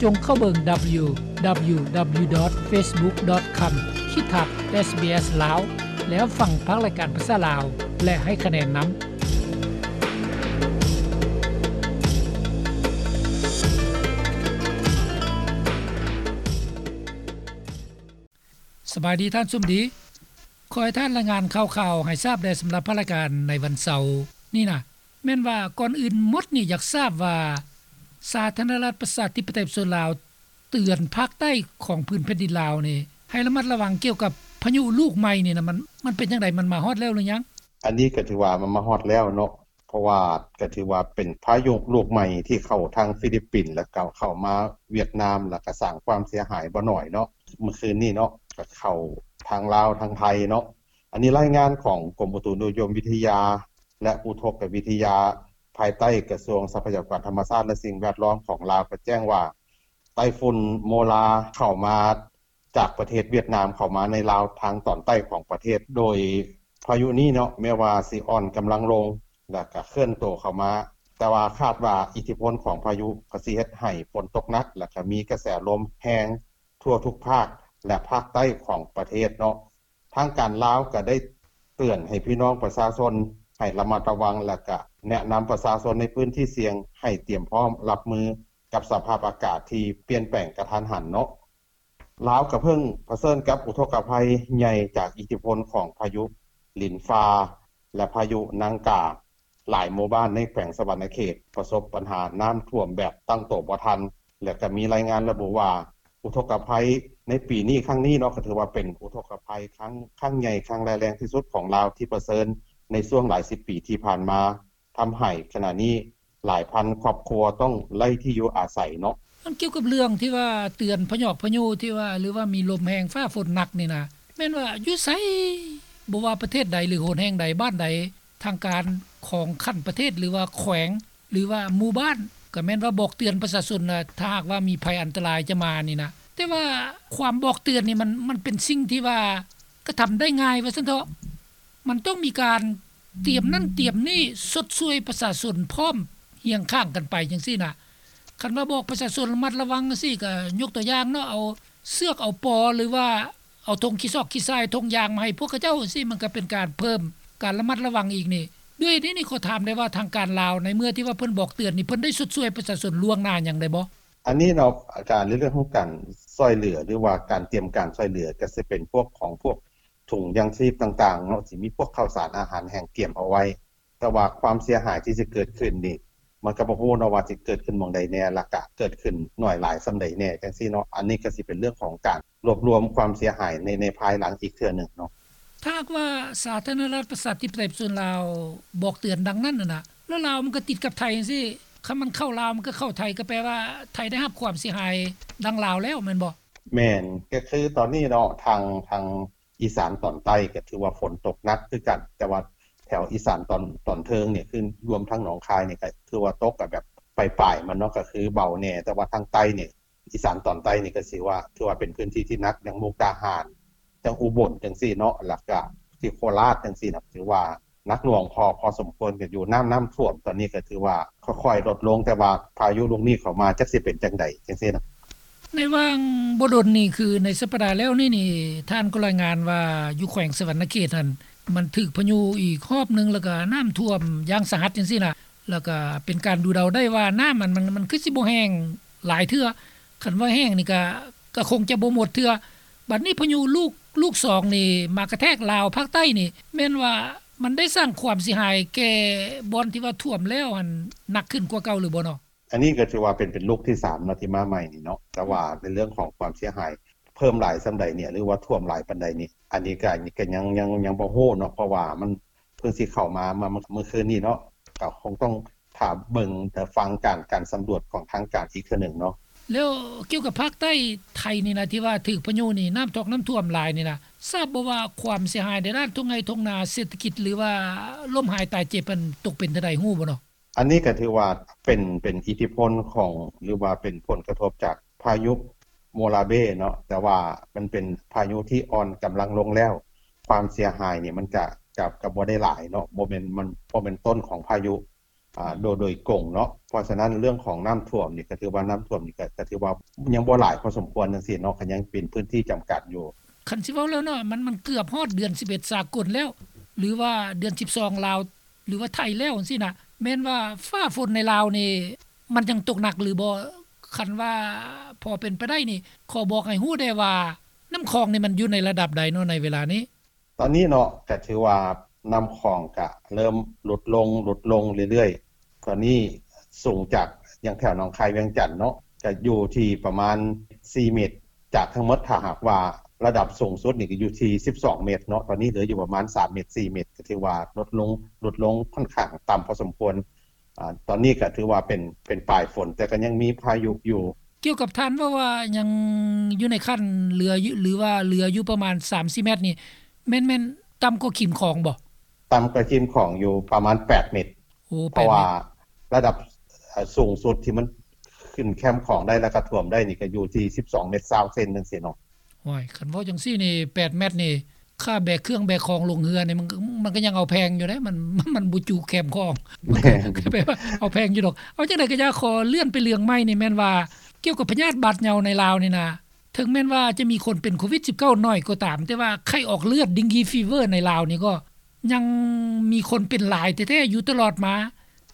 ຈົ່ງເຂົ້າເບິ່ງ ດັບເບິນຢູ ດັບເບິນຢູ ດັບເບິນຢູ ດອດ ເຟສບຸກ ດອດ ຄອມ ຂີດທັບ ເອສບີເອສ ລາວ ແລ້ວຟັງພາກລາຍການພາສາລາວ ແລະ ໃຫ້ຄະແນນນຳ. ສະບາຍດີທ່ານສົມດີ. ຂໍໃຫ້ທ່ານລາຍງານຂ່າວໆໃຫ້ຊາບແດ່ສຳລັບພາກລາຍການໃນວັນເສົານີ້ນະ. ແມ່ນວ່າກ່ອນອື່ນໝົດນີ້ຢາກຊາບວ່າ ສາທາລະນະລັດປະຊາທິປະໄຕປະຊາຊົນລາວ ເຕືອນພາກໃຕ້ຂອງພື້ນແຜ່ນດິນລາວນີ້ ໃຫ້ລະມັດລະວັງກ່ຽວກັບພາຍຸລູກໃໝ່ນີ້ນະ ມັນ ມັນເປັນຈັ່ງໃດ? ມັນມາຮອດແລ້ວຫຼືຍັງ? ອັນນີ້ກໍຖືວ່າມັນມາຮອດແລ້ວເນາະ ເພາະວ່າກໍຖືວ່າເປັນພາຍຸລູກໃໝ່ທີ່ເຂົ້າທາງຟີລິບປິນ ແລ້ວກໍເຂົ້າມາຫວຽດນາມ ແລ້ວກໍສ້າງຄວາມເສຍຫາຍບໍ່ໜ້ອຍເນາະ. ມື້ຄືນນີ້ເນາະ ກໍເຂົ້າທາງລາວ ທາງໄທເນາະ. ອັນນີ້ລາຍງານຂອງກົມອຸຕຸນິຍົມວິທະຍາ ແລະ ອຸທົກກະວິທະຍາ ພາຍໃຕ້ກະຊວງຊັບພະຍາກອນທຳມະຊາດ ແລະ ສິ່ງແວດລ້ອມຂອງລາວ ກໍແຈ້ງວ່າ ໄຕ້ຝຸ່ນໂມລາເຂົ້າມາຈາກປະເທດຫວຽດນາມ ເຂົ້າມາໃນລາວທາງຕອນໃຕ້ຂອງປະເທດ ໂດຍພາຍຸນີ້ເນາະ ແມ້ວ່າຊິອ່ອນກຳລັງລົງ ແລ້ວກະເຄື່ອນໂຕເຂົ້າມາ ແຕ່ວ່າຄາດວ່າອິດທິພົນຂອງພາຍຸກໍຊິເຮັດໃຫ້ຝົນຕົກໜັກ ແລ້ວກະມີກະແສລົມແຮງທົ່ວທຸກພາກ ແລະ ພາກໃຕ້ຂອງປະເທດເນາະ. ທາງການລາວກໍໄດ້ເຕືອນໃຫ້ພີ່ນ້ອງປະຊາຊົນໃຫ້ລະມັດລະວັງ ແລ້ວກະແນະນຳປະຊາຊົນໃນພື້ນທີ່ສ່ຽງໃຫ້ຕຽມພ້ອມຮັບມືກັບສະພາບອາກາດທີ່ປ່ຽນແປງກະທັນຫັນເນາະ. ລາວກໍເພິ່ງປະເຊີນກັບອຸທົກກະໄພໃຫຍ່ຈາກອິດທິພົນຂອງພາຍຸລິນຟ້າ ແລະ ພາຍຸນາງກາ. ຫຼາຍໝູ່ບ້ານໃນແຂວງສະຫວັນນະເຂດປະສົບບັນຫານ້ຳຖ້ວມແບບຕັ້ງໂຕບໍ່ທັນ ແລະ ກໍມີລາຍງານລະບຸວ່າ ອຸທົກກະໄພໃນປີນີ້ຄັ້ງນີ້ເນາະ ກໍຖືວ່າເປັນອຸທົກກະໄພຄັ້ງ ຄັ້ງໃຫຍ່ ຄັ້ງຮ້າຍແຮງທີ່ສຸດຂອງລາວທີ່ປະເຊີນໃນຊ່ວງຫຼາຍສິບປີທີ່ຜ່ານມາ ທຳໃຫ້ຂະນະນີ້ຫຼາຍພັນຄອບຄົວຕ້ອງໄຮ້ທີ່ຢູ່ອາໄສເນາະ. ອັນກ່ຽວກັບເລື່ອງທີ່ວ່າເຕືອນພະຍອກພະຍຸທີ່ວ່າ ຫຼືວ່າມີລົມແຮງຟ້າຝົນໜັກນີ້ນະ ແມ່ນວ່າຢູ່ໃສ ບໍ່ວ່າປະເທດໃດ ຫຼື ຫົນແຫ່ງໃດ ບ້ານໃດ ທາງການຂອງຂັ້ນປະເທດ ຫຼືວ່າແຂວງ ຫຼືວ່າໝູ່ບ້ານ ກໍແມ່ນວ່າບອກເຕືອນປະຊາຊົນນະ ຖ້າຫາກວ່າມີໄພອັນຕະລາຍຈະມານີ້ນະ. ແຕ່ວ່າຄວາມບອກເຕືອນນີ້ມັນ ມັນເປັນສິ່ງທີ່ວ່າກະທຳໄດ້ງ່າຍວ່າຊັ້ນເຖາະ. ມັນຕ້ອງມີການຕຽມນັ້ນຕຽມນີ້ ຊົດຊ່ວຍປະຊາຊົນພ້ອມຮຽງຂ້າງກັນໄປຈັ່ງຊີ້ນະ. ຄັນວ່າບອກປະຊາຊົນລະມັດລະວັງຈັ່ງຊີ້ ກໍຍົກຕົວຢ່າງເນາະ ເອົາເຊືອກເອົາປໍ ຫຼືວ່າ ເອົາຖົງຂີ້ຊອກຂີ້ຊາຍ ຖົງຢາງມາໃຫ້ພວກເຂົາເຈົ້າ ຈັ່ງຊີ້ ມັນກໍເປັນການເພີ່ມການລະມັດລະວັງອີກນີ້. ດ້ວຍນີ້ນີ້ ຂໍຖາມໄດ້ວ່າ ທາງການລາວໃນເມື່ອທີ່ວ່າເພິ່ນບອກເຕືອນນີ້ ເພິ່ນໄດ້ຊົດຊ່ວຍປະຊາຊົນລ່ວງໜ້າຫຍັງໄດ້ບໍ່? ອັນນີ້ເນາະ ການ ໃນເລື່ອງຂອງການຊ່ວຍເຫຼືອ ຫຼືວ່າການຕຽມການຊ່ວຍເຫຼືອ ກໍຊິເປັນພວກຂອງພວກ ຖົງຢາງຊີບຕ່າງໆເນາະ ຊິມີພວກເຂົ້າສານອາຫານແຫ້ງກຽມເອົາໄວ້. ແຕ່ວ່າຄວາມເສຍຫາຍທີ່ຊິເກີດຂຶ້ນນີ້ ມັນກໍບໍ່ຮູ້ເນາະວ່າຊິເກີດຂຶ້ນໝ່ອງໃດແດ່ ແລ້ວກະເກີດຂຶ້ນໜ້ອຍຫຼາຍສ່ຳໃດແດ່ ຈັ່ງຊີ້ເນາະ. ອັນນີ້ກໍຊິເປັນເລື່ອງຂອງການລວບລວມຄວາມເສຍຫາຍໃນ ໃນພາຍຫຼັງອີກເທື່ອໜຶ່ງເນາະ. ຖ້າຫາກວ່າສາທາລະນະລັດປະຊາທິປະໄຕປະຊາຊົນລາວບອກເຕືອນດັ່ງນັ້ນນະ ແລ້ວລາວມັນກໍຕິດກັບໄທຈັ່ງຊີ້ ຄັນມັນເຂົ້າລາວ ມັນກໍເຂົ້າໄທ ກໍແປວ່າໄທໄດ້ຮັບຄວາມເສຍຫາຍດັ່ງລາວແລ້ວແມ່ນບໍ່? ແມ່ນ ກໍຄືຕອນນີ້ເນາະ ທາງ ທາງ ອີສານຕອນໃຕ້ກໍຖືວ່າຝົນຕົກໜັກຄືກັນ ແຕ່ວ່າແຖວອີສານຕອນ ຕອນເທິງນີ້ ຄືລວມທັງໜອງຄາຍນີ້ ກໍຖືວ່າຕົກກໍແບບປາຍໆມັນເນາະ ກໍຄືເບົາແດ່ ແຕ່ວ່າທາງໃຕ້ນີ້ ອີສານຕອນໃຕ້ນີ້ກໍຊິວ່າ ຖືວ່າເປັນພື້ນທີ່ທີ່ໜັກ ຢ່າງມຸກດາຫານ ຈັ່ງອຸບົນຈັ່ງຊີ້ເນາະ ແລ້ວກະທີ່ໂຄລາດຈັ່ງຊີ້ນະ ຖືວ່າໜັກໜ່ວງພໍ ພໍສົມຄວນກັນຢູ່ ນ້ຳ ນ້ຳຖ້ວມຕອນນີ້ກໍຖືວ່າຄ່ອຍໆລົດລົງ ແຕ່ວ່າພາຍຸລູກນີ້ເຂົ້າມາ ຈັກຊິເປັນຈັ່ງໃດຈັ່ງຊີ້ນະ. ໃນຫວ່າງບໍ່ດົນນີ້ ຄືໃນສັບປະດາແລ້ວນີ້ນີ້ ທ່ານກໍລາຍງານວ່າຢູ່ແຂວງສະຫວັນນະເຂດຫັ້ນ ມັນຖືກພາຍຸອີກຮອບໜຶ່ງ ແລ້ວກໍນ້ຳຖ້ວມຢ່າງສາຫັດຈັ່ງຊີ້ນະ ແລ້ວກໍເປັນການດູເດົາໄດ້ວ່ານ້ຳມັນ ມັນ ມັນຄືຊິບໍ່ແຫ້ງຫຼາຍເທື່ອ ຄັນວ່າແຫ້ງນີ້ກໍ ກໍຄົງຈະບໍ່ໝົດເທື່ອ. ບັດນີ້ພາຍຸລູກ ລູກສອງນີ້ມາກະແທກລາວພາກໃຕ້ນີ້ ແມ່ນວ່າມັນໄດ້ສ້າງຄວາມເສຍຫາຍແກ່ບ່ອນທີ່ວ່າຖ້ວມແລ້ວຫັ້ນໜັກຂຶ້ນກວ່າເກົ່າຫຼືບໍ່ເນາະ? ອັນນີ້ກໍຖືວ່າເປັນ ເປັນລູກທີສາມເນາະ ທີ່ມາໃໝ່ນີ້ເນາະ ແຕ່ວ່າໃນເລື່ອງຂອງຄວາມເສຍຫາຍເພີ່ມຫຼາຍສ່ຳໃດນີ້ ຫຼືວ່າຖ້ວມຫຼາຍປານໃດນີ້ ອັນນີ້ກໍ ກໍຍັງ ຍັງ ຍັງບໍ່ຮູ້ເນາະ ເພາະວ່າມັນເພິ່ງຊິເຂົ້າມາ ມາ ມາມື້ຄືນນີ້ເນາະ ກໍຄົງຕ້ອງຖ້າເບິ່ງ ຖ້າຟັງການ ການສຳຫຼວດຂອງທາງການອີກເທື່ອໜຶ່ງເນາະ. ແລ້ວກ່ຽວກັບພາກໃຕ້ໄທນີ້ນະ ທີ່ວ່າຖືກພາຍຸນີ້ນ້ຳຖອກນ້ຳຖ້ວມຫຼາຍນີ້ນະ ຊາບບໍ່ວ່າຄວາມເສຍຫາຍໃນດ້ານທົ່ງໄຮ່ທົ່ງນາ ເສດຖະກິດ ຫຼືວ່າລົ້ມຫາຍຕາຍເຈັບຫັ້ນຕົກເປັນເທົ່າໃດ ຮູ້ບໍ່ເນາະ? ອັນນີ້ກໍຖືວ່າເປັນ ເປັນອິດທິພົນຂອງ ຫຼືວ່າເປັນຜົນກະທົບຈາກພາຍຸໂມລາເບເນາະ ແຕ່ວ່າມັນເປັນພາຍຸທີ່ອ່ອນກຳລັງລົງແລ້ວ ຄວາມເສຍຫາຍນີ້ມັນກະ ກະ ກະບໍ່ໄດ້ຫຼາຍເນາະ ບໍ່ແມ່ນ ມັນບໍ່ແມ່ນຕົ້ນຂອງພາຍຸ ອ່າ ໂດຍ ໂດຍກົງເນາະ. ເພາະສະນັ້ນເລື່ອງຂອງນ້ຳຖ້ວມນີ້ ກໍຖືວ່ານ້ຳຖ້ວມນີ້ ກໍ ກໍຖືວ່າຍັງບໍ່ຫຼາຍພໍສົມຄວນຈັ່ງຊີ້ເນາະ ກໍຍັງເປັນພື້ນທີ່ຈຳກັດຢູ່. ຄັນຊິເວົ້າແລ້ວເນາະ ມັນ ມັນເກືອບຮອດເດືອນສິບເອັດສາກົນແລ້ວ ຫຼືວ່າເດືອນສິບສອງລາວ ຫຼືວ່າໄທແລ້ວຈັ່ງຊີ້ນະ ແມ່ນວ່າຟ້າຝົນໃນລາວນີ້ ມັນຍັງຕົກໜັກຫຼືບໍ່? ຄັນວ່າພໍເປັນໄປໄດ້ນີ້ ຂໍບອກໃຫ້ຮູ້ແດ່ວ່າ ນ້ຳຂອງນີ້ມັນຢູ່ໃນລະດັບໃດເນາະໃນເວລານີ້? ຕອນນີ້ເນາະ ກະຖືວ່ານ້ຳຂອງກະເລີ່ມຫຼຸດລົງ ຫຼຸດລົງເລື້ອຍໆ. ຕອນນີ້ສູງຈາກ ຢ່າງແຖວໜອງຄາຍ ວຽງຈັນເນາະ ກະຢູ່ທີ່ປະມານສີ່ເມັດ ຈາກທັງໝົດ ຖ້າຫາກວ່າລະດັບສູງສຸດນີ້ກະຢູ່ທີ່ສິບສອງເມັດເນາະ ຕອນນີ້ເຫຼືອຢູ່ປະມານສາມເມັດ ສີ່ເມັດ ກະຖືວ່າຫຼຸດລົງ ຫຼຸດລົງຂ້ອນຂ້າງຕ່ຳພໍສົມຄວນ. ອາ ຕອນນີ້ກໍຖືວ່າເປັນ ເປັນປາຍຝົນ ແຕ່ກໍຍັງມີພາຍຸຢູ່. ກ່ຽວກັບທ່ານເວົ້າວ່າຍັງຢູ່ໃນຂັ້ນເຫຼືອຢູ່ ຫຼືວ່າເຫຼືອຢູ່ປະມານສາມສີ່ແມັດນີ້ ແມ່ນ ແມ່ນຕ່ຳກວ່າຂີມຂອງບໍ່? ຕ່ຳກວ່າຂີມຂອງຢູ່ປະມານແປດເມັດ. ໂອ້ ແປດເມັດ ເພາະວ່າລະດັບ ເອີ ສູງສຸດທີ່ມັນຂຶ້ນແຄມຂອງໄດ້ ແລ້ວກໍຖ້ວມໄດ້ນີ້ ກໍຢູ່ທີ່ສິບສອງເມັດຊາວເຊັນຈັ່ງຊີ້ເນາະ. ໂອ້ຍ ຄັນເວົ້າຈັ່ງຊີ້ນີ້ ແປດແມັດນີ້ ຄ່າແບກເຄື່ອງແບກຂອງລົງເຮືອນີ້ ມັນ ມັນກໍຍັງເອົາແພງຢູ່ເດ້ ມັນ ມັນບໍ່ຈຸແຄມຂອງ ມັນກໍແບບວ່າເອົາແພງຢູ່ດອກ. ເອົາຈັ່ງໃດກໍຢ່າ ຂໍເລື່ອນໄປເລື່ອງໃໝ່ນີ້ ແມ່ນວ່າກ່ຽວກັບພະຍາດບາດເຍົາໃນລາວນີ້ນະ ເຖິງແມ່ນວ່າຈະມີຄົນເປັນໂຄວິດສິບເກົ້າໜ້ອຍກໍຕາມ ແຕ່ວ່າໄຂ້ອອກເລືອດ ເດັງກີຟີເວີ ໃນລາວນີ້ກໍຍັງມີຄົນເປັນຫຼາຍແທ້ໆຢູ່ຕະຫຼອດມາ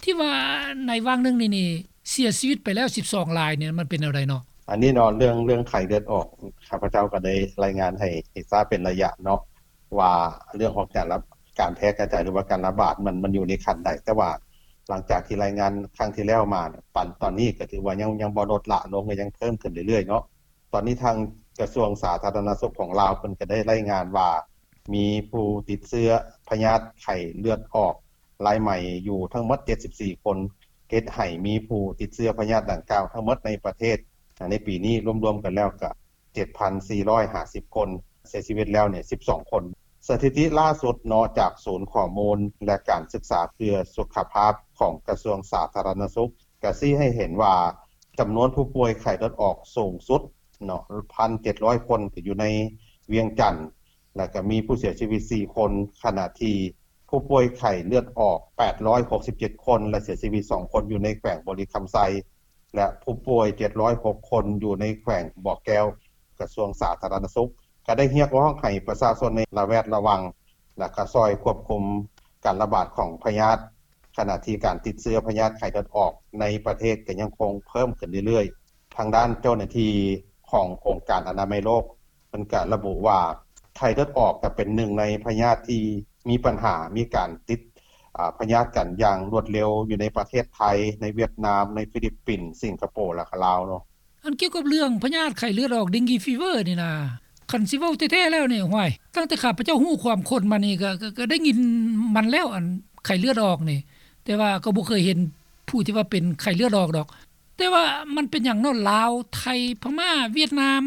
ທີ່ວ່າໃນຫວ່າງໜຶ່ງນີ້ນີ້ ເສຍຊີວິດໄປແລ້ວສິບສອງລາຍນີ້ ມັນເປັນແນວໃດເນາະ? ອັນນີ້ເນາະ ເລື່ອງ ເລື່ອງໄຂ້ເລືອດອອກ ຂ້າພະເຈົ້າກໍໄດ້ລາຍງານໃຫ້ ໃຫ້ຊາບເປັນໄລຍະເນາະ ວ່າເລື່ອງຂອງການລະ ການແຜ່ກະຈາຍ ຫຼືວ່າການລະບາດມັນ ມັນຢູ່ໃນຂັ້ນໃດ. ແຕ່ວ່າຫຼັງຈາກທີ່ລາຍງານຄັ້ງທີ່ແລ້ວມາ ປັນຕອນນີ້ກໍຖືວ່າຍັງ ຍັງບໍ່ລົດລະລົງ ກໍຍັງເພີ່ມຂຶ້ນເລື້ອຍໆເນາະ. ຕອນນີ້ທາງກະຊວງສາທາລະນະສຸກຂອງລາວ ເພິ່ນກໍໄດ້ລາຍງານວ່າ ມີຜູ້ຕິດເຊື້ອພະຍາດໄຂ້ເລືອດອອກລາຍໃໝ່ຢູ່ທັງໝົດເຈັດສິບສີ່ຄົນ ເຮັດໃຫ້ມີຜູ້ຕິດເຊື້ອພະຍາດດັ່ງກ່າວທັງໝົດໃນປະເທດ ໃນປີນີ້ລວມໆກັນແລ້ວກະເຈັດພັນສີ່ຮ້ອຍຫ້າສິບຄົນ, ເສຍຊີວິດແລ້ວນີ້ສິບສອງຄົນ. ສະຖິຕິລ່າສຸດເນາະ ຈາກສູນຂໍ້ມູນ ແລະ ການສຶກສາເພື່ອສຸຂະພາບຂອງກະຊວງສາທາລະນະສຸກ ກະຊີ້ໃຫ້ເຫັນວ່າ ຈຳນວນຜູ້ປ່ວຍໄຂ້ເລືອດອອກສູງສຸດເນາະ ພັນເຈັດຮ້ອຍຄົນ ກະຢູ່ໃນວຽງຈັນ ແລ້ວກະມີຜູ້ເສຍຊີວິດສີ່ຄົນ, ຂະນະທີ່ຜູ້ປ່ວຍໄຂ້ເລືອດອອກແປດຮ້ອຍຫົກສິບເຈັດຄົນ ແລະ ເສຍຊີວິດສອງຄົນ ຢູ່ໃນແຂວງບໍລິຄຳໄຊ ແລະ ຜູ້ປ່ວຍເຈັດຮ້ອຍຫົກຄົນ ຢູ່ໃນແຂວງບໍ່ແກ້ວ. ກະຊວງສາທາລະນະສຸກ ກະໄດ້ຮຽກຮ້ອງໃຫ້ປະຊາຊົນໃນລະແວດລະວັງ ແລະ ກະຊ່ອຍຄວບຄຸມການລະບາດຂອງພະຍາດ ຂະນະທີ່ການຕິດເຊື້ອພະຍາດໄຂ້ເລືອດອອກໃນປະເທດກໍຍັງຄົງເພີ່ມຂຶ້ນເລື້ອຍໆ. ທາງດ້ານເຈົ້າໜ້າທີ່ຂອງອົງການອະນາໄມໂລກ ເພິ່ນກະລະບຸວ່າ ໄຂ້ເລືອດອອກກະເປັນໜຶ່ງໃນພະຍາດທີ່ມີບັນຫາ ມີການຕິດ ອາ ພະຍາດກັນຢ່າງລວດເລັວ ຢູ່ໃນປະເທດໄທ, ໃນຫວຽດນາມ, ໃນຟີລິບປິນ, ສິງກະໂປ ແລະ ກະລາວເນາະ. ອັນກ່ຽວກັບເລື່ອງພະຍາດໄຂ້ເລືອດອອກ ເດັງກີຟີເວີ ນີ້ນະ ຄັນຊິເວົ້າແທ້ໆແລ້ວນີ້ ຫ້ວຍ ຕັ້ງແຕ່ຂ້າພະເຈົ້າຮູ້ຄວາມຄົນມານີ້ ກະ ກະ ກະໄດ້ຍິນມັນແລ້ວ ອັນໄຂ້ເລືອດອອກນີ້ ແຕ່ວ່າກໍບໍ່ເຄີຍເຫັນຜູ້ທີ່ວ່າເປັນໄຂ້ເລືອດອອກດອກ. ແຕ່ວ່າມັນເປັນຫຍັງເນາະ ລາວ, ໄທ, ພະມ້າ, ຫວຽດນາມ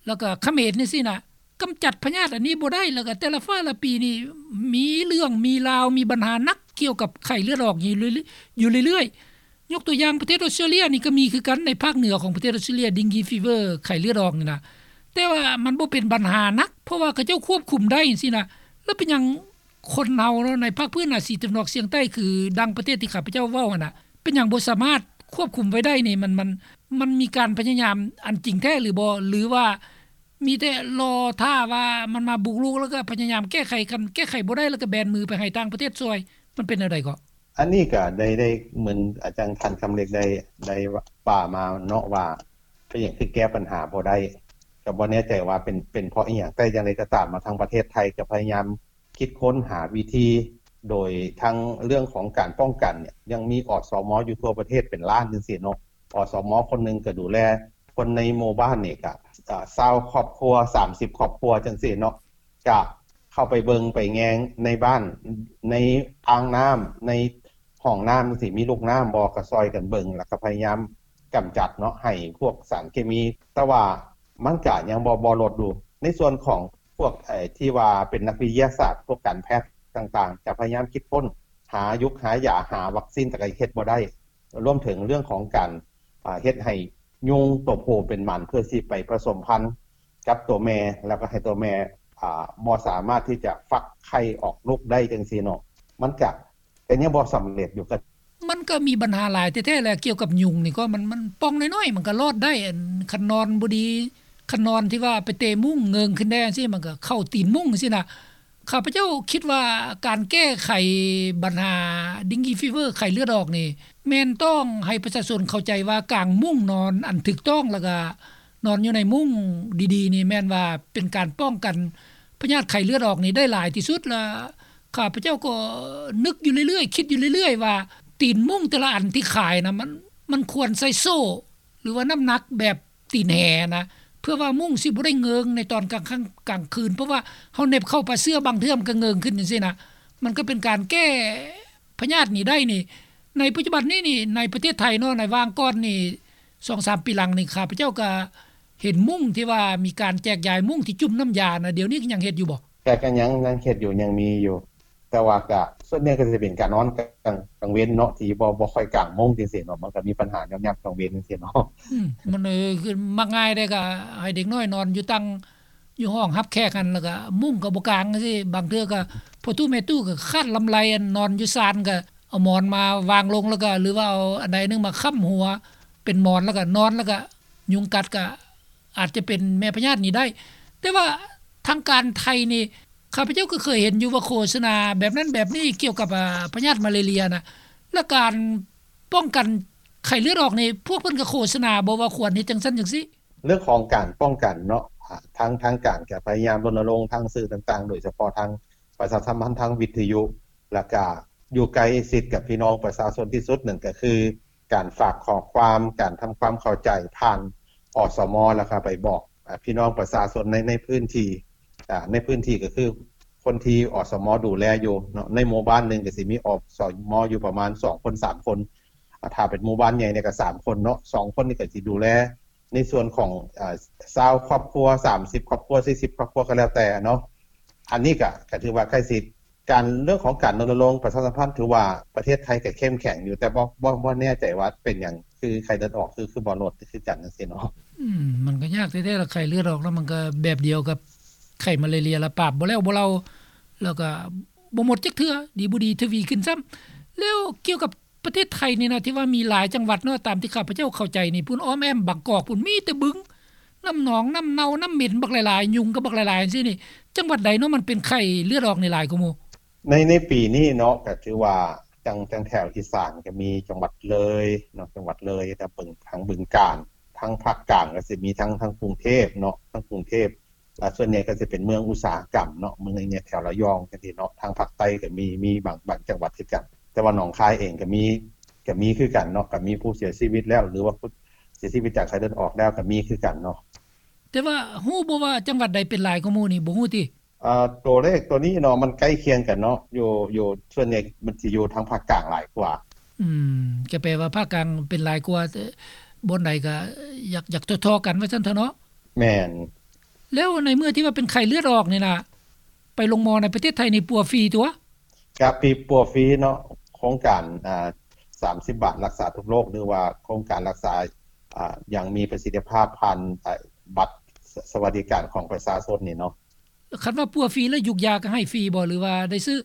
ແລ້ວກະຂະເໝນຈັ່ງຊີ້ນະ ກຳຈັດພະຍາດອັນນີ້ບໍ່ໄດ້ ແລ້ວກະແຕ່ລະຟ້າລະປີນີ້ ມີເລື່ອງ ມີລາວ ມີບັນຫາໜັກກ່ຽວກັບໄຂ້ເລືອດອອກຢູ່ເລື້ອຍໆ ຢູ່ເລື້ອຍໆ. ຍົກຕົວຢ່າງປະເທດອອສເຕຣເລຍນີ້ກໍມີຄືກັນ ໃນພາກເໜືອຂອງປະເທດອອສເຕຣເລຍ ເດັງກີຟີເວີ ໄຂ້ເລືອດອອກນີ້ນະ ແຕ່ວ່າມັນບໍ່ເປັນບັນຫາໜັກ ເພາະວ່າເຂົາເຈົ້າຄວບຄຸມໄດ້ຈັ່ງຊີ້ນະ. ແລ້ວເປັນຫຍັງຄົນເຮົາເນາະ ໃນພາກພື້ນອາຊີຕາເວັນອອກສຽງໃຕ້ ຄືດັ່ງປະເທດທີ່ຂ້າພະເຈົ້າເວົ້າຫັ້ນນະ ເປັນຫຍັງບໍ່ສາມາດຄວບຄຸມໄວ້ໄດ້ນີ້? ມັນ ມັນ ມັນມີການພະຍາຍາມອັນຈິງແທ້ຫຼືບໍ່ ຫຼືວ່າມີແຕ່ລໍຖ້າວ່າມັນມາບຸກລຸກ ແລ້ວກໍພະຍາຍາມແກ້ໄຂ ຄັນແກ້ໄຂບໍ່ໄດ້ ແລ້ວກໍແບນມືໄປໃຫ້ຕ່າງປະເທດຊ່ວຍ ມັນເປັນແນວໃດເກາະ? ອັນນີ້ກໍໄດ້ ໄດ້ເໝືອນອາຈານ ທ່ານຄຳເລັກ ໄດ້ ໄດ້ວ່າມາເນາະ ວ່າເປັນຫຍັງຄືແກ້ບັນຫາບໍ່ໄດ້ ກໍບໍ່ແນ່ໃຈວ່າເປັນ ເປັນເພາະອີ່ຫຍັງ ແຕ່ຢ່າງໃດກໍຕາມ ມາທາງປະເທດໄທກໍພະຍາຍາມ ຄິດຄົ້ນຫາວິທີ ໂດຍທັງເລື່ອງຂອງການປ້ອງກັນເນຍ ຍັງມີ ອສມ ຢູ່ທົ່ວປະເທດເປັນລ້ານຈັ່ງຊີ້ເນາະ. ອສມ ຄົນໜຶ່ງກໍດູແລຄົນໃນໝູ່ບ້ານນີ້ກະ ອາ ຊາວຄອບຄົວ ສາມສິບຄອບຄົວຈັ່ງຊີ້ເນາະ ກະເຂົ້າໄປເບິ່ງໄປແຍງໃນບ້ານ ໃນອ່າງນ້ຳ ໃນຫ້ອງນ້ຳຈັ່ງຊີ້ ມີລູກນ້ຳບໍ່ ກະຊ່ອຍກັນເບິ່ງ ແລ້ວກະພະຍາຍາມກຳຈັດເນາະ ໃຫ້ພວກສານເຄມີ ແຕ່ວ່າມັນກະຍັງບໍ່ ບໍ່ລົດຢູ່. ໃນສ່ວນຂອງ ພວກ ເອີ ທີ່ວ່າເປັນນັກວິທະຍາສາດ ພວກການແພດຕ່າງໆ ຈະພະຍາຍາມຄິດຄົ້ນ ຫາຍຸກຫາຢາ ຫາວັກຊີນ ແຕ່ກໍເຮັດບໍ່ໄດ້ ລວມເຖິງເລື່ອງຂອງການ ອາ ເຮັດໃຫ້ຍຸງໂຕຜູ້ເປັນໝັນ ເພື່ອຊິໄປປະສົມພັນກັບໂຕແມ່ ແລ້ວກໍໃຫ້ໂຕແມ່ ອາ ບໍ່ສາມາດທີ່ຈະຟັກໄຂ່ອອກລູກໄດ້ຈັ່ງຊີ້ເນາະ ມັນກະ ກໍຍັງບໍ່ສຳເລັດຢູ່. ກໍມັນ ກໍມີບັນຫາຫຼາຍແທ້ໆແຫຼະ ກ່ຽວກັບຍຸງນີ້ກໍມັນ ມັນປ່ອງນ້ອຍໆ ມັນກໍລອດໄດ້ ອັນ ຄັນນອນບໍ່ດີ ຄັນນອນທີ່ວ່າໄປເຕະມຸ້ງເງິງຂຶ້ນແດ່ຈັ່ງຊີ້ ມັນກໍເຂົ້າຕີນມຸ້ງຈັ່ງຊີ້ນະ. ຂ້າພະເຈົ້າຄິດວ່າການແກ້ໄຂບັນຫາ dengue fever ໄຂ້ເລືອດອອກນີ້ ແມ່ນຕ້ອງໃຫ້ປະຊາຊົນເຂົ້າໃຈວ່າກາງມຸ້ງນອນອັນຖືກຕ້ອງ ແລ້ວກະນອນຢູ່ໃນມຸ້ງດີໆນີ້ ແມ່ນວ່າເປັນການປ້ອງກັນພະຍາດໄຂ້ເລືອດອອກນີ້ໄດ້ຫຼາຍທີ່ສຸດ. ແລະ ຂ້າພະເຈົ້າກໍນຶກຢູ່ເລື້ອຍໆ ຄິດຢູ່ເລື້ອຍໆວ່າ ຕີນມຸ້ງແຕ່ລະອັນທີ່ຂາຍນະ ມັນ ມັນຄວນໃສ່ໂສ້ ຫຼືວ່ານ້ຳໜັກແບບຕີນແຫນະ ເພື່ອວ່າມຸ້ງຊິບໍ່ໄດ້ເງິງໃນຕອນກາງຄ່ຳກາງຄືນ ເພາະວ່າເຮົາເໜັບເຂົ້າປາເຊື້ອ ບາງເທື່ອມັນກໍເງິງຂຶ້ນຈັ່ງຊີ້ນະ ມັນກໍເປັນການແກ້ພະຍາດນີ້ໄດ້ນີ້. ໃນປັດຈຸບັນນີ້ນີ້ ໃນປະເທດໄທເນາະ ໃນຫວ່າງກ່ອນນີ້ ສອງສາມປີຫຼັງນີ້ ຂ້າພະເຈົ້າກໍເຫັນມຸ້ງທີ່ວ່າມີການແຈກຢາຍມຸ້ງທີ່ຈຸ່ມນ້ຳຢານະ ດຽວນີ້ກໍຍັງເຮັດຢູ່ບໍ່? ກໍ ກໍຍັງ ຍັງເຮັດຢູ່ ຍັງມີຢູ່ ແຕ່ວ່າກະ ສ່ວນໃຫຍ່ກໍຊິເປັນການນອນກາງ ກາງເວັນເນາະ ທີ່ບໍ່ ບໍ່ຄ່ອຍກາງມຸ້ງຈັ່ງຊີ້ເນາະ ມັນກໍມີບັນຫາຍາມ ຍາມກາງເວັນຈັ່ງຊີ້ເນາະ. ອືມ ມັນ ເອີ ຄືມັກງ່າຍເດ້ ກໍໃຫ້ເດັກນ້ອຍນອນຢູ່ຕັ່ງ ຢູ່ຫ້ອງຮັບແຂກຫັ້ນ ແລ້ວກໍມຸ້ງກໍບໍ່ກາງຈັ່ງຊີ້ ບາງເທື່ອກໍພໍ່ຕູ້ແມ່ຕູ້ກໍຄາດລຳໄລ ອັນນອນຢູ່ຊານ ກໍເອົາໝອນມາວາງລົງ ແລ້ວກໍ ຫຼືວ່າເອົາອັນໃດໜຶ່ງມາຄ້ຳຫົວເປັນໝອນ ແລ້ວກໍນອນ ແລ້ວກໍ ຍຸງກັດກໍອາດຈະເປັນແມ່ພະຍາດນີ້ໄດ້. ແຕ່ວ່າທາງການໄທນີ້ ຂ້າພະເຈົ້າກໍເຄີຍເຫັນຢູ່ວ່າໂຄສະນາແບບນັ້ນແບບນີ້ກ່ຽວກັບ ອາ ພະຍາດມາເລເລຍນະ ແລະ ການປ້ອງກັນໄຂ້ເລືອດອອກນີ້ ພວກເພິ່ນກໍໂຄສະນາບໍ່ວ່າຄວນເຮັດຈັ່ງຊັ້ນຈັ່ງຊີ້? ເລື່ອງຂອງການປ້ອງກັນເນາະ ອາ ທາງ ທາງການກໍພະຍາຍາມລົນນະລົງທາງສື່ຕ່າງໆ ໂດຍສະເພາະທາງປະຊາສຳພັນທາງວິທະຍຸ ແລ້ວກະຢູ່ໃກ້ຊິດກັບພີ່ນ້ອງປະຊາຊົນທີ່ສຸດ ນັ້ນກໍຄື ການຝາກຂໍ້ຄວາມ ການທຳຄວາມເຂົ້າໃຈຜ່ານ ອສມ ແລ້ວກໍໄປບອກ ອາ ພີ່ນ້ອງປະຊາຊົນໃນ ໃນພື້ນທີ່ ອາ ໃນພື້ນທີ່ກໍຄືຄົນທີ່ ອສມ ດູແລຢູ່ເນາະ ໃນໝູ່ບ້ານໜຶ່ງກໍຊິມີ ອສມ ຢູ່ປະມານສອງຄົນ ສາມຄົນ ອາ ຖ້າເປັນໝູ່ບ້ານໃຫຍ່ນີ້ກໍສາມຄົນເນາະ ສອງຄົນນີ້ກໍຊິດູແລໃນສ່ວນຂອງ ອາ ຊາວຄອບຄົວ ສາມສິບຄອບຄົວ ສີ່ສິບຄອບຄົວ ກໍແລ້ວແຕ່ເນາະ. ອັນນີ້ກໍ ກໍຖືວ່າໃກ້ຊິດ ການ ເລື່ອງຂອງການລົນນະລົງປະຊາສຳພັນ ຖືວ່າປະເທດໄທກໍເຂັ້ມແຂງຢູ່ ແຕ່ບໍ່ ບໍ່ ບໍ່ແນ່ໃຈວ່າເປັນຫຍັງ ຄືໄຂ້ເລືອດອອກ ຄື ຄືບໍ່ລົດຄືກັນຈັ່ງຊີ້ເນາະ. ອືມ ມັນກໍຍາກແທ້ໆລະ ໄຂ້ເລືອດອອກນະ ມັນກໍແບບດຽວກັບໄຂ້ມາເລເລຍລະ ປາບບໍ່ແລ້ວບໍ່ເລົ່າ ແລ້ວກໍບໍ່ໝົດຈັກເທື່ອ ດີບໍ່ດີທະວີຂຶ້ນຊ້ຳ. ແລ້ວກ່ຽວກັບປະເທດໄທນີ້ນະ ທີ່ວ່າມີຫຼາຍຈັງຫວັດເນາະ ຕາມທີ່ຂ້າພະເຈົ້າເຂົ້າໃຈນີ້ ພຸ້ນອ້ອມແອ້ມບາງກອກພຸ້ນ ມີແຕ່ບຶງ ນ້ຳໜອງ ນ້ຳເນົ່າ ນ້ຳເໝັນບັກຫຼາຍໆ ຍຸງກໍບັກຫຼາຍໆ ຈັ່ງຊີ້ນີ້ ຈັງຫວັດໃດເນາະ ມັນເປັນໄຂ້ເລືອດອອກນີ້ຫຼາຍກວ່າໝູ່? ໃນ ໃນປີນີ້ເນາະ ກໍຖືວ່າ ຈັ່ງ ຈັ່ງແຖວອີສານກໍມີຈັງຫວັດເລີຍເນາະ ຈັງຫວັດເລີຍ ທາງບຶງ ທາງບຶງການ ທາງພາກກາງກໍຊິມີທາງ ທາງກຸງເທບເນາະ ທາງກຸງເທບ ແລະ ສ່ວນໃຫຍ່ກໍຊິເປັນເມືອງອຸດສາຫະກຳເນາະ ເມືອງໃນແຖວລະຍອງຈັ່ງຊີ້ເນາະ ທາງພາກໃຕ້ກໍມີ ມີບາງ ບາງຈັງຫວັດຄືກັນ ແຕ່ວ່າໜອງຄາຍເອງກໍມີ ກໍມີຄືກັນເນາະ ກໍມີຜູ້ເສຍຊີວິດແລ້ວ ຫຼືວ່າຜູ້ເສຍຊີວິດຈາກໄຂ້ເລືອດອອກແລ້ວກໍມີຄືກັນເນາະ. ແຕ່ວ່າຮູ້ບໍ່ວ່າຈັງຫວັດໃດເປັນຫຼາຍກວ່າໝູ່ນີ້ ບໍ່ຮູ້ຕິ? ອາ ຕົວເລກຕົວນີ້ເນາະ ມັນໃກ້ຄຽງກັນເນາະ ຢູ່ ຢູ່ ສ່ວນໃຫຍ່ມັນຊິຢູ່ທາງພາກກາງຫຼາຍກວ່າ. ອືມ ກໍແປວ່າພາກກາງເປັນຫຼາຍກວ່າ ແຕ່ບ່ອນໃດກໍຢາກ ຢາກທໍ່ໆກັນວ່າຊັ້ນເຖາະເນາະ. ແມ່ນ. ແລ້ວໃນເມື່ອທີ່ວ່າເປັນໄຂ້ເລືອດອອກນີ້ນະ ໄປໂຮງໝໍໃນປະເທດໄທນີ້ປົວຟຣີຕົວະ? ກະຟຣີ ປົວຟຣີເນາະ ໂຄງການ ອາ ສາມສິບບາດລັກສາທຸກໂລກ ຫຼືວ່າໂຄງການລັກສາ ອາ ຢ່າງມີປະສິດທິພາບຜ່ານ ອາ ບັດສະ ສະຫວັດດີການຂອງປະຊາຊົນນີ້ເນາະ. ຄັນວ່າປົວຟຣີແລ້ວ ຢູກຢາກໍໃຫ້ຟຣີບໍ່ ຫຼືວ່າໄດ້ຊື້?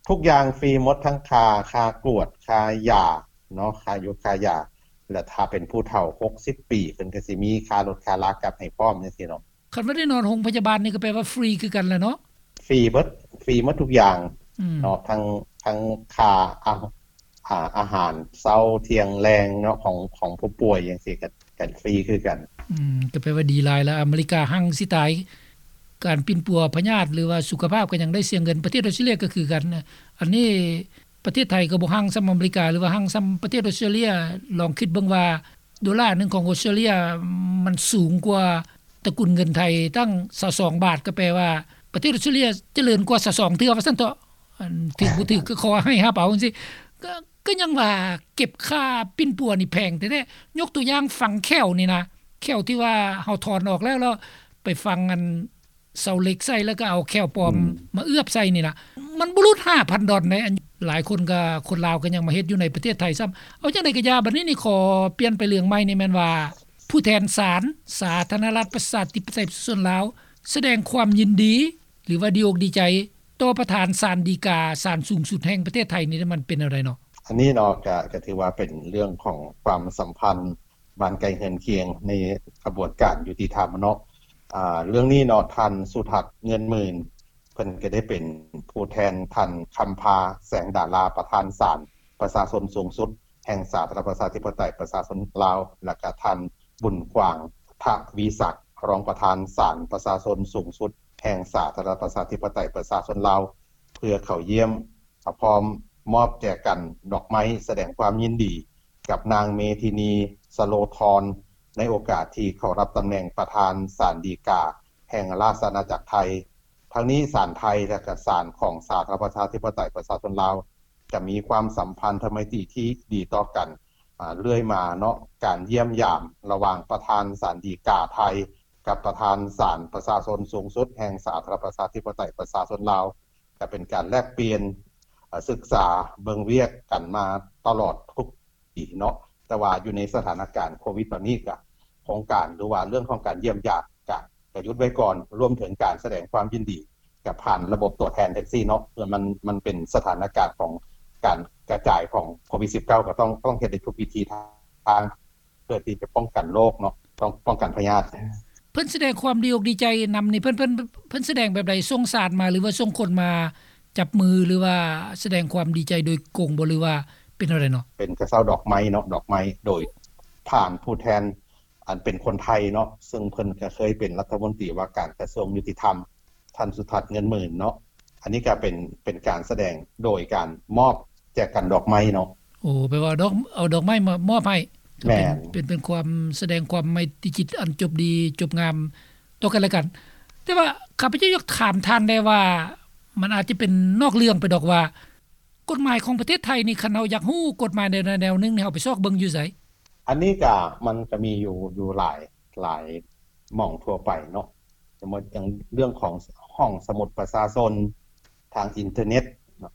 ທຸກຢ່າງຟຣີໝົດ ທັງຄ່າ ຄ່າກວດ ຄ່າຢາເນາະ ຄ່າຢູກຄ່າຢາ ແລະ ຖ້າເປັນຜູ້ເຖົ້າຫົກສິບປີ ເພິ່ນກໍຊິມີຄ່າລົດຄ່າລາກັບໃຫ້ພ້ອມຈັ່ງຊີ້ເນາະ. ຄັນວ່າໄດ້ນອນໂຮງພະຍາບານນີ້ກໍແປວ່າຟຣີຄືກັນແຫຼະເນາະ? ຟຣີເບິດ ຟຣີໝົດທຸກຢ່າງ ອືມ ເນາະ ທັງ ທັງຄ່າ ອາ ອາ ອາຫານເຊົ້າ ທ່ຽງ ແລງເນາະ ຂອງ ຂອງຜູ້ປ່ວຍຈັ່ງຊີ້ ກໍ ກໍຟຣີຄືກັນ. ອືມ ກໍແປວ່າດີຫຼາຍລະ ອາເມລິກາຮັ່ງຊິຕາຍ ການປິ່ນປົວພະຍາດ ຫຼືວ່າສຸຂະພາບກໍຍັງໄດ້ເສຍເງິນ ປະເທດອອສເຕຣເລຍກໍຄືກັນ. ອັນນີ້ປະເທດໄທກໍບໍ່ຮັ່ງສ່ຳອາເມລິກາ ຫຼືວ່າຮັ່ງສ່ຳປະເທດອອສເຕຣເລຍ ລອງຄິດເບິ່ງວ່າ ໂດລາໜຶ່ງຂອງອອສເຕຣເລຍ ມັນສູງກວ່າຕະກຸນເງິນໄທຕັ້ງຊາວສອງບາດ ກໍແປວ່າປະເທດອອສເຕຣເລຍຈະເລີນກວ່າຊາວສອງເທື່ອວ່າຊັ້ນເຖາະ. ອັນຖືກບໍ່ຖືກກໍຂໍໃຫ້ຮັບເອົາຈັ່ງຊີ້ ກໍ ກໍຍັງວ່າເກັບຄ່າປິ່ນປົວນີ້ແພງແທ້ໆ. ຍົກຕົວຢ່າງຝັງແຂ້ວນີ້ນະ ແຂ້ວທີ່ວ່າເຮົາຖອນອອກແລ້ວ ແລ້ວໄປຝັງອັນ ເສົາເຫຼັກໃສ່ ແລ້ວກໍເອົາແຂ້ວປອມ ອືມ ມາເອບໃສ່ນີ້ນະ ມັນບໍ່ຫຼຸດຫ້າພັນດອນໃດ໋. ອັນ ຫຼາຍຄົນກໍ ຄົນລາວກໍຍັງມາເຮັດຢູ່ໃນປະເທດໄທຊ້ຳ. ເອົາຈັ່ງໃດກໍຢ່າ ບັດນີ້ນີ້ຂໍປ່ຽນໄປເລື່ອງໃໝ່ນີ້ ແມ່ນວ່າຜູ້ແທນສານສາທາລະນະລັດປະຊາທິປະໄຕປະຊາຊົນລາວ ສະແດງຄວາມຍິນດີ ຫຼືວ່າດີອົກດີໃຈຕໍ່ປະທານສານฎີກາ ສານສູງສຸດແຫ່ງປະເທດໄທນີ້ ມັນເປັນແນວໃດເນາະ? ອັນນີ້ເນາະ ກະ ກະຖືວ່າເປັນເລື່ອງຂອງຄວາມສຳພັນບ້ານໃກ້ເຮືອນຄຽງໃນຂະບວນການຍຸຕິທຳເນາະ. ອາ ເລື່ອງນີ້ເນາະ ທ່ານ ສຸທັດ ເງິນໝື່ນ ເພິ່ນກະໄດ້ເປັນຜູ້ແທນທ່ານ ຄຳພາ ແສງດາລາ ປະທານສານປະຊາຊົນສູງສຸດແຫ່ງສາທາລະນະລັດປະຊາທິປະໄຕປະຊາຊົນລາວ ແລະກະທ່ານ ບຸນກວ້າງ ທະວີສັກ ຮອງປະທານສານປະຊາຊົນສູງສຸດແຫ່ງສາທາລະນະລັດປະຊາທິປະໄຕປະຊາຊົນລາວ ເພື່ອເຂົ້າຢ້ຽມ ພ້ອມມອບແຈກັນດອກໄມ້ສະແດງຄວາມຍິນດີກັບນາງ ເມທິນີ ສະໂລທອນ ໃນໂອກາດທີ່ເຂົ້າຮັບຕຳແໜ່ງປະທານສານฎີກາແຫ່ງລາຊະອານາຈັກໄທ. ທັງນີ້ສານໄທ ແລະກະສານຂອງສາທາລະນະລັດປະຊາທິປະໄຕປະຊາຊົນລາວ ຈະມີຄວາມສຳພັນທຳໄມຕີທີ່ດີຕໍ່ກັນ ອາ ເລື້ອຍມາເນາະ. ການຢ້ຽມຢາມລະຫວ່າງປະທານສານດີກາໄທ ກັບປະທານສານປະຊາຊົນສູງສຸດແຫ່ງສາທາລະນະລັດປະຊາທິປະໄຕປະຊາຊົນລາວ ກະເປັນການແລກປ່ຽນ ອາ ສຶກສາເບິ່ງວຽກກັນມາຕະຫຼອດທຸກປີເນາະ. ແຕ່ວ່າຢູ່ໃນສະຖານະການໂຄວິດຕອນນີ້ ກະໂຄງການ ຫຼືວ່າເລື່ອງຂອງການຢ້ຽມຢາມ ກະ ກະຢຸດໄວ້ກ່ອນ ລວມເຖິງການສະແດງຄວາມຍິນດີກັບຜ່ານລະບົບຕົວແທນແທັກຊີເນາະ. ເພື່ອມັນ ມັນເປັນສະຖານະການຂອງການກະຈາຍຂອງໂຄວິດສິບເກົ້າ ກະຕ້ອງ ຕ້ອງເຮັດໃນທຸກວິທີທາງ ເພື່ອທີ່ຈະປ້ອງກັນໂລກເນາະ ຕ້ອງປ້ອງກັນພະຍາດ. ເພິ່ນສະແດງຄວາມດີອົກດີໃຈນຳນີ້ ເພິ່ນ ເພິ່ນ ເພິ່ນສະແດງແບບໃດ? ສົ່ງສານມາ ຫຼືວ່າສົ່ງຄົນມາຈັບມື ຫຼືວ່າສະແດງຄວາມດີໃຈໂດຍກົງບໍ່ ຫຼືວ່າເປັນແນວໃດເນາະ? ເປັນກະເຊົາດອກໄມ້ເນາະ ດອກໄມ້ໂດຍຜ່ານຜູ້ແທນ ອັນເປັນຄົນໄທເນາະ ເຊິ່ງເພິ່ນກະເຄີຍເປັນລັດຖະມົນຕີວ່າການກະຊວງຍຸຕິທຳ ທ່ານ ສຸທັດ ເງິນໝື່ນເນາະ. ອັນນີ້ກະເປັນ ເປັນການສະແດງໂດຍການມອບແຈກັນດອກໄມ້ເນາະ. ໂອ້ ແປວ່າດອກ ເອົາດອກໄມ້ມາມອບໃຫ້. ແມ່ນ. ເປັນ ເປັນ ເປັນຄວາມສະແດງຄວາມໄມຕີຈິດອັນຈົບດີຈົບງາມຕໍ່ກັນແລະກັນ. ແຕ່ວ່າຂ້າພະເຈົ້າຢາກຖາມທ່ານແດ່ວ່າ ມັນອາດຈະເປັນນອກເລື່ອງໄປດອກວ່າ ກົດໝາຍຂອງປະເທດໄທນີ້ ຄັນເຮົາຢາກຮູ້ກົດໝາຍແນວໃດແນວໜຶ່ງນີ້ ເຮົາໄປຊອກເບິ່ງຢູ່ໃສ? ອັນນີ້ກະ ມັນກະມີຢູ່ ຢູ່ຫຼາຍ ຫຼາຍໝ່ອງທົ່ວໄປເນາະ. ສົມມຸດຢ່າງເລື່ອງຂອງຫ້ອງສະໝຸດປະຊາຊົນ ທາງອິນເຕີເນັດ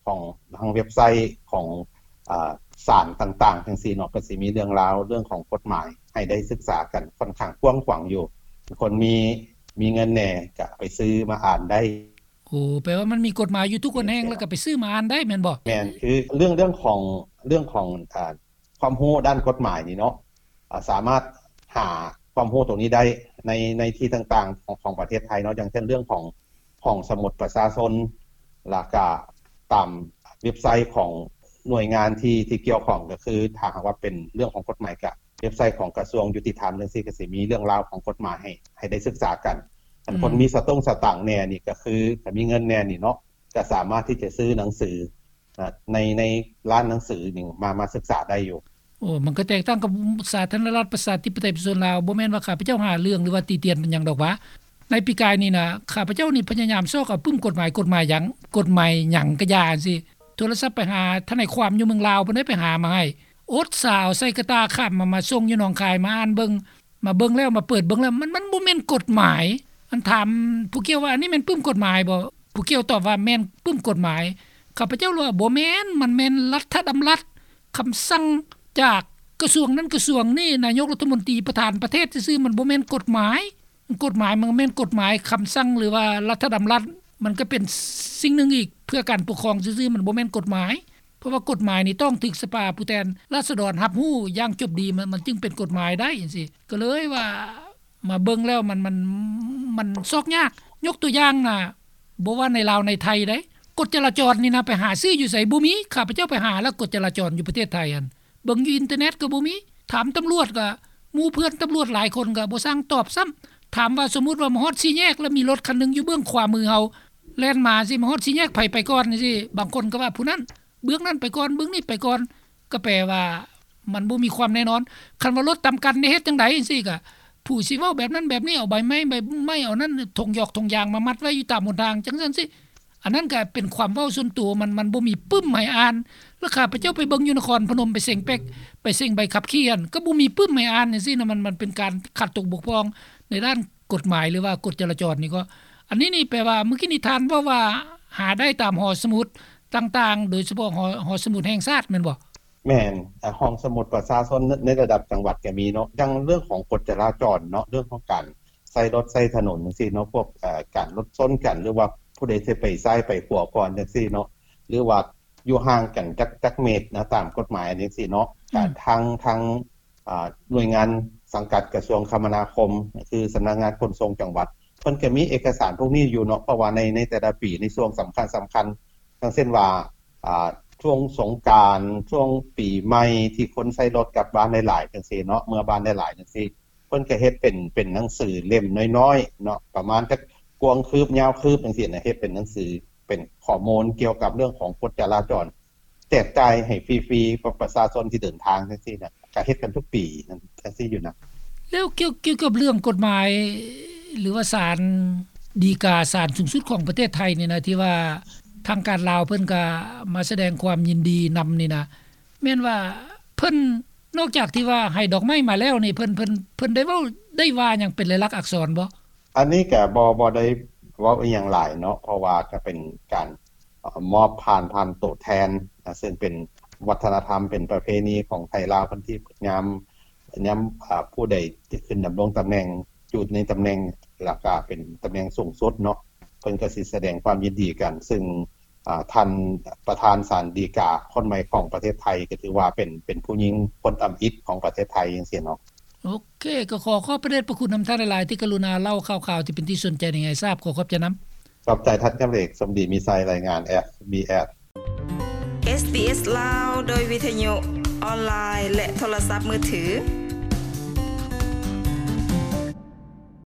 ຂອງ ທາງເວັບໄຊຂອງ ອາ ສານຕ່າງໆ ຈັ່ງຊີ້ເນາະ ກະຊິມີເລື່ອງລາວເລື່ອງຂອງກົດໝາຍໃຫ້ໄດ້ສຶກສາກັນຂ້ອນຂ້າງກວ້າງຂວາງຢູ່. ຄົນມີ ມີເງິນແດ່ກະໄປຊື້ມາອ່ານໄດ້. ໂອ້ ແປວ່າມັນມີກົດໝາຍຢູ່ທຸກແຫ່ງ ແລ້ວກະໄປຊື້ມາອ່ານໄດ້ແມ່ນບໍ່? ແມ່ນ. ຄືເລື່ອງ ເລື່ອງຂອງ ເລື່ອງຂອງ ອາ ຄວາມຮູ້ດ້ານກົດໝາຍນີ້ເນາະ ອາ ສາມາດຫາຄວາມຮູ້ຕົງນີ້ໄດ້ໃນ ໃນທີ່ຕ່າງໆຂອງ ຂອງປະເທດໄທເນາະ ຢ່າງເຊັ່ນເລື່ອງຂອງຫ້ອງສະໝຸດປະຊາຊົນ ແລ້ວກະຕາມເວັບໄຊຂອງໜ່ວຍງານທີ່ ທີ່ກ່ຽວຂ້ອງ ກະຄືຖ້າຫາກວ່າເປັນເລື່ອງຂອງກົດໝາຍ ກະເວັບໄຊຂອງກະຊວງຍຸຕິທຳຈັ່ງຊີ້ກະຊິມີເລື່ອງລາວຂອງກົດໝາຍໃຫ້ ໃຫ້ໄດ້ສຶກສາກັນ. ອັນ ອືມ ຄົນມີສະຕົງສະຕາງແດ່ນີ້ ກະຄືຖ້າມີເງິນແດ່ນີ້ເນາະ ກະສາມາດທີ່ຈະຊື້ໜັງສື ໃນ ໃນຮ້ານໜັງສືນີ້ມາ ມາສຶກສາໄດ້ຢູ່. ໂອ້ ມັນກະແຕກຕ່າງກັບສາທາລະນະລັດປະຊາທິປະໄຕປະຊາຊົນລາວ. ບໍ່ແມ່ນວ່າຂ້າພະເຈົ້າຫາເລື່ອງ ຫຼືວ່າຕິຕຽນຫຍັງດອກຫວາ. ໃນປີກາຍນີ້ນະ ຂ້າພະເຈົ້ານີ້ພະຍາຍາມຊອກເອົາປຶ້ມກົດໝາຍ ກົດໝາຍຫຍັງ ກົດໝາຍຫຍັງກະຢ່າຊີ້ ໂທລະສັບໄປຫາທະນາຍຄວາມຢູ່ເມືອງລາວ ເພິ່ນໄດ້ໄປຫາມາໃຫ້ ອົດສາເອົາໃສ່ກະຕ່າຂ້າມມາ ມາສົ່ງຢູ່ໜອງຄາຍ ມາອ່ານເບິ່ງ ມາເບິ່ງແລ້ວ ມາເປີດເບິ່ງແລ້ວ ມັນ ມັນບໍ່ແມ່ນກົດໝາຍ. ອັນຖາມຜູ້ກ່ຽວວ່າ ອັນນີ້ແມ່ນປຶ້ມກົດໝາຍບໍ່? ຜູ້ກ່ຽວຕອບວ່າແມ່ນປຶ້ມກົດໝາຍ. ຂ້າພະເຈົ້າວ່າບໍ່ແມ່ນ, ມັນແມ່ນລັດຖະດຳລັດ, ຄຳສັ່ງຈາກກະຊວງນັ້ນກະຊວງນີ້, ນາຍົກລັດຖະມົນຕີ, ປະທານປະເທດຊື່ໆ, ມັນບໍ່ແມ່ນກົດໝາຍ. ກົດໝາຍມັນແມ່ນກົດໝາຍ, ຄຳສັ່ງ ຫຼືວ່າລັດຖະດຳລັດ ມັນກະເປັນສິ່ງໜຶ່ງອີກ ເພື່ອການປົກຄອງຊື່ໆ, ມັນບໍ່ແມ່ນກົດໝາຍ. ເພາະວ່າກົດໝາຍນີ້ຕ້ອງຖືກສະພາຜູ້ແທນລາຊະດອນຮັບຮູ້ຢ່າງຈົບດີ, ມັນ ມັນຈຶ່ງເປັນກົດໝາຍໄດ້ຈັ່ງຊີ້. ກະເລີຍວ່າມາເບິ່ງແລ້ວມັນ ມັນ ມັນຊອກຍາກ. ຍົກຕົວຢ່າງນະ, ບໍ່ວ່າໃນລາວໃນໄທໃດ໋, ກົດຈະລາຈອນນີ້ນະ ໄປຫາຊື້ຢູ່ໃສ? ບໍ່ມີ. ຂ້າພະເຈົ້າໄປຫາແລ້ວ ກົດຈະລາຈອນຢູ່ປະເທດໄທຫັ້ນ ເບິ່ງຢູ່ອິນເຕີເນັດກະບໍ່ມີ. ຖາມຕຳຫຼວດກະ ໝູ່ເພື່ອນຕຳຫຼວດຫຼາຍຄົນກະບໍ່ຊ່າງຕອບຊ້ຳ. ຖາມວ່າສົມມຸດວ່າມາຮອດສີ່ແຍກ ແລ້ວມີລົດຄັນໜຶ່ງຢູ່ເບື້ອງຂວາມືເຮົາ ແລ່ນມາຊີ້ ມາຮອດສີ່ແຍກ ໃຜໄປກ່ອນຊີ້? ບາງຄົນກະວ່າຜູ້ນັ້ນ ເບື້ອງນັ້ນໄປກ່ອນ ເບື້ອງນີ້ໄປກ່ອນ ກະແປວ່າມັນບໍ່ມີຄວາມແນ່ນອນ. ຄັນວ່າລົດຕຳກັນນີ້ເຮັດຈັ່ງໃດຈັ່ງຊີ້ ກະຜູ້ຊິເວົ້າແບບນັ້ນແບບນີ້ ເອົາໃບໄມ້ ໃບໄມ້ ເອົານັ້ນ ຖົງຢອກຖົງຢາງມາມັດໄວ້ຢູ່ຕາມຫົນທາງ ຈັ່ງຊັ້ນຊີ້. ອັນນັ້ນກະເປັນຄວາມເວົ້າສ່ວນຕົວ ມັນ ມັນບໍ່ມີປຶ້ມໃຫ້ອ່ານ. ແລ້ວຂ້າພະເຈົ້າໄປເບິ່ງຢູ່ນະຄອນພະນົມ ໄປເສັງແປັກ ໄປເສັງໃບຂັບຂີ່ຫັ້ນ ກະບໍ່ມີປຶ້ມໃຫ້ອ່ານຈັ່ງຊີ້ນະ. ມັນ ມັນເປັນການຂາດຕົກບົກຜ່ອງໃນດ້ານກົດໝາຍ ຫຼືວ່າກົດຈະລາຈອນນີ້ກໍ ອັນນີ້ນີ້ແປວ່າ ມື້ກີ້ນີ້ທ່ານເວົ້າວ່າຫາໄດ້ຕາມຫໍສະໝຸດຕ່າງໆ ໂດຍສະເພາະຫໍ ຫໍສະໝຸດແຫ່ງຊາດແມ່ນບໍ່? ແມ່ນ. ອາ ຫ້ອງສະໝຸດປະຊາຊົນໃນ ໃນລະດັບຈັງຫວັດກະມີເນາະ. ຢ່າງເລື່ອງຂອງກົດຈະລາຈອນເນາະ, ເລື່ອງຂອງການໃຊ້ລົດໃຊ້ຖະໜົນຈັ່ງຊີ້ເນາະ, ພວກ ເອີ ການລົດຊົນກັນ ຫຼືວ່າຜູ້ໃດຊິໄປຊ້າຍໄປຂວາກ່ອນຈັ່ງຊີ້ເນາະ, ຫຼືວ່າ ຢູ່ຫ່າງກັນຈັກຈັກເມດນະ ຕາມກົດໝາຍຈັ່ງຊີ້ເນາະ. ອືມ ກໍທາງ ທາງ ອ່າ ໜ່ວຍງານສັງກັດກະຊວງຄະມະນາຄົມ ຄືສຳນັກງານຂົນສົ່ງຈັງຫວັດ ເພິ່ນກໍມີເອກະສານພວກນີ້ຢູ່ເນາະ ເພາະວ່າໃນ ໃນແຕ່ລະປີ ໃນຊ່ວງສຳຄັນໆ ຢ່າງເຊັ່ນວ່າ ອ່າ ຊ່ວງສົງການ ຊ່ວງປີໃໝ່ ທີ່ຄົນໃຊ້ລົດກັບບ້ານຫຼາຍໆ ຈັ່ງຊີ້ເນາະ ເມືອບ້ານຫຼາຍໆ ຈັ່ງຊີ້ ເພິ່ນກໍເຮັດເປັນ ເປັນໜັງສືເຫຼັ້ມນ້ອຍໆ ເນາະ ປະມານຈັກກວ້າງຄືບ ຍາວຄືບ ຈັ່ງຊີ້ນະ ເຮັດເປັນໜັງສື ເປັນຂໍ້ມູນກ່ຽວກັບເລື່ອງຂອງກົດຈະລາຈອນ ແຈກຈ່າຍໃຫ້ຟຣີໆ ປະ ປະຊາຊົນທີ່ເດີນທາງຈັ່ງຊີ້ນະ ກະເຮັດກັນທຸກປີຈັ່ງຊີ້ຢູ່ນະ. ແລ້ວກ່ຽວ ກ່ຽວກັບເລື່ອງກົດໝາຍ ຫຼືວ່າສານດີກາ ສານສູງສຸດຂອງປະເທດໄທນີ້ນະ ທີ່ວ່າທາງການລາວເພິ່ນກະມາສະແດງຄວາມຍິນດີນຳນີ້ນະ ແມ່ນວ່າເພິ່ນ ນອກຈາກທີ່ວ່າໃຫ້ດອກໄມ້ມາແລ້ວນີ້ ເພິ່ນ ເພິ່ນ ເພິ່ນໄດ້ເວົ້າ ໄດ້ວ່າຫຍັງເປັນລາຍລັກອັກສອນບໍ່? ອັນນີ້ກະບໍ່ ບໍ່ໄດ້ເວົ້າອີ່ຫຍັງຫຼາຍເນາະ ເພາະວ່າກະເປັນການ ເອີ່ ມອບຜ່ານ ຜ່ານໂຕແທນນະ ເຊິ່ງເປັນວັດທະນະທຳ ເປັນປະເພນີຂອງໄທລາວເພິ່ນ ທີ່ຍາມ ຍາມ ອາ ຜູ້ໃດຈະຂຶ້ນດຳລົງຕຳແໜ່ງ ຢູ່ໃນຕຳແໜ່ງ ແລ້ວກະເປັນຕຳແໜ່ງສູງສຸດເນາະ ເພິ່ນກໍຊິສະແດງຄວາມຍິນດີກັນ ເຊິ່ງ ອາ ທ່ານປະທານສານດີກາຄົນໃໝ່ຂອງປະເທດໄທ ກໍຖືວ່າເປັນ ເປັນຜູ້ຍິງຄົນທຳອິດຂອງປະເທດໄທ ຈັ່ງຊີ້ເນາະ. ໂອເຄ ກໍຂໍຂອບພະເດດພະຄຸນນຳທ່ານຫຼາຍໆ ທີ່ກະລຸນາເລົ່າຂ່າວໆ ທີ່ເປັນທີ່ສົນໃຈໃຫ້ໄດ້ຊາບ. ຂໍຂອບໃຈນຳ. ຂອບໃຈທ່ານຈຳເອກ ສົມດີມີໄຊ ລາຍງານ ເອສບີເອສ ເອສບີເອສ ລາວ ໂດຍວິທະຍຸ ອອນລາຍ ແລະ ໂທລະສັບມືຖື.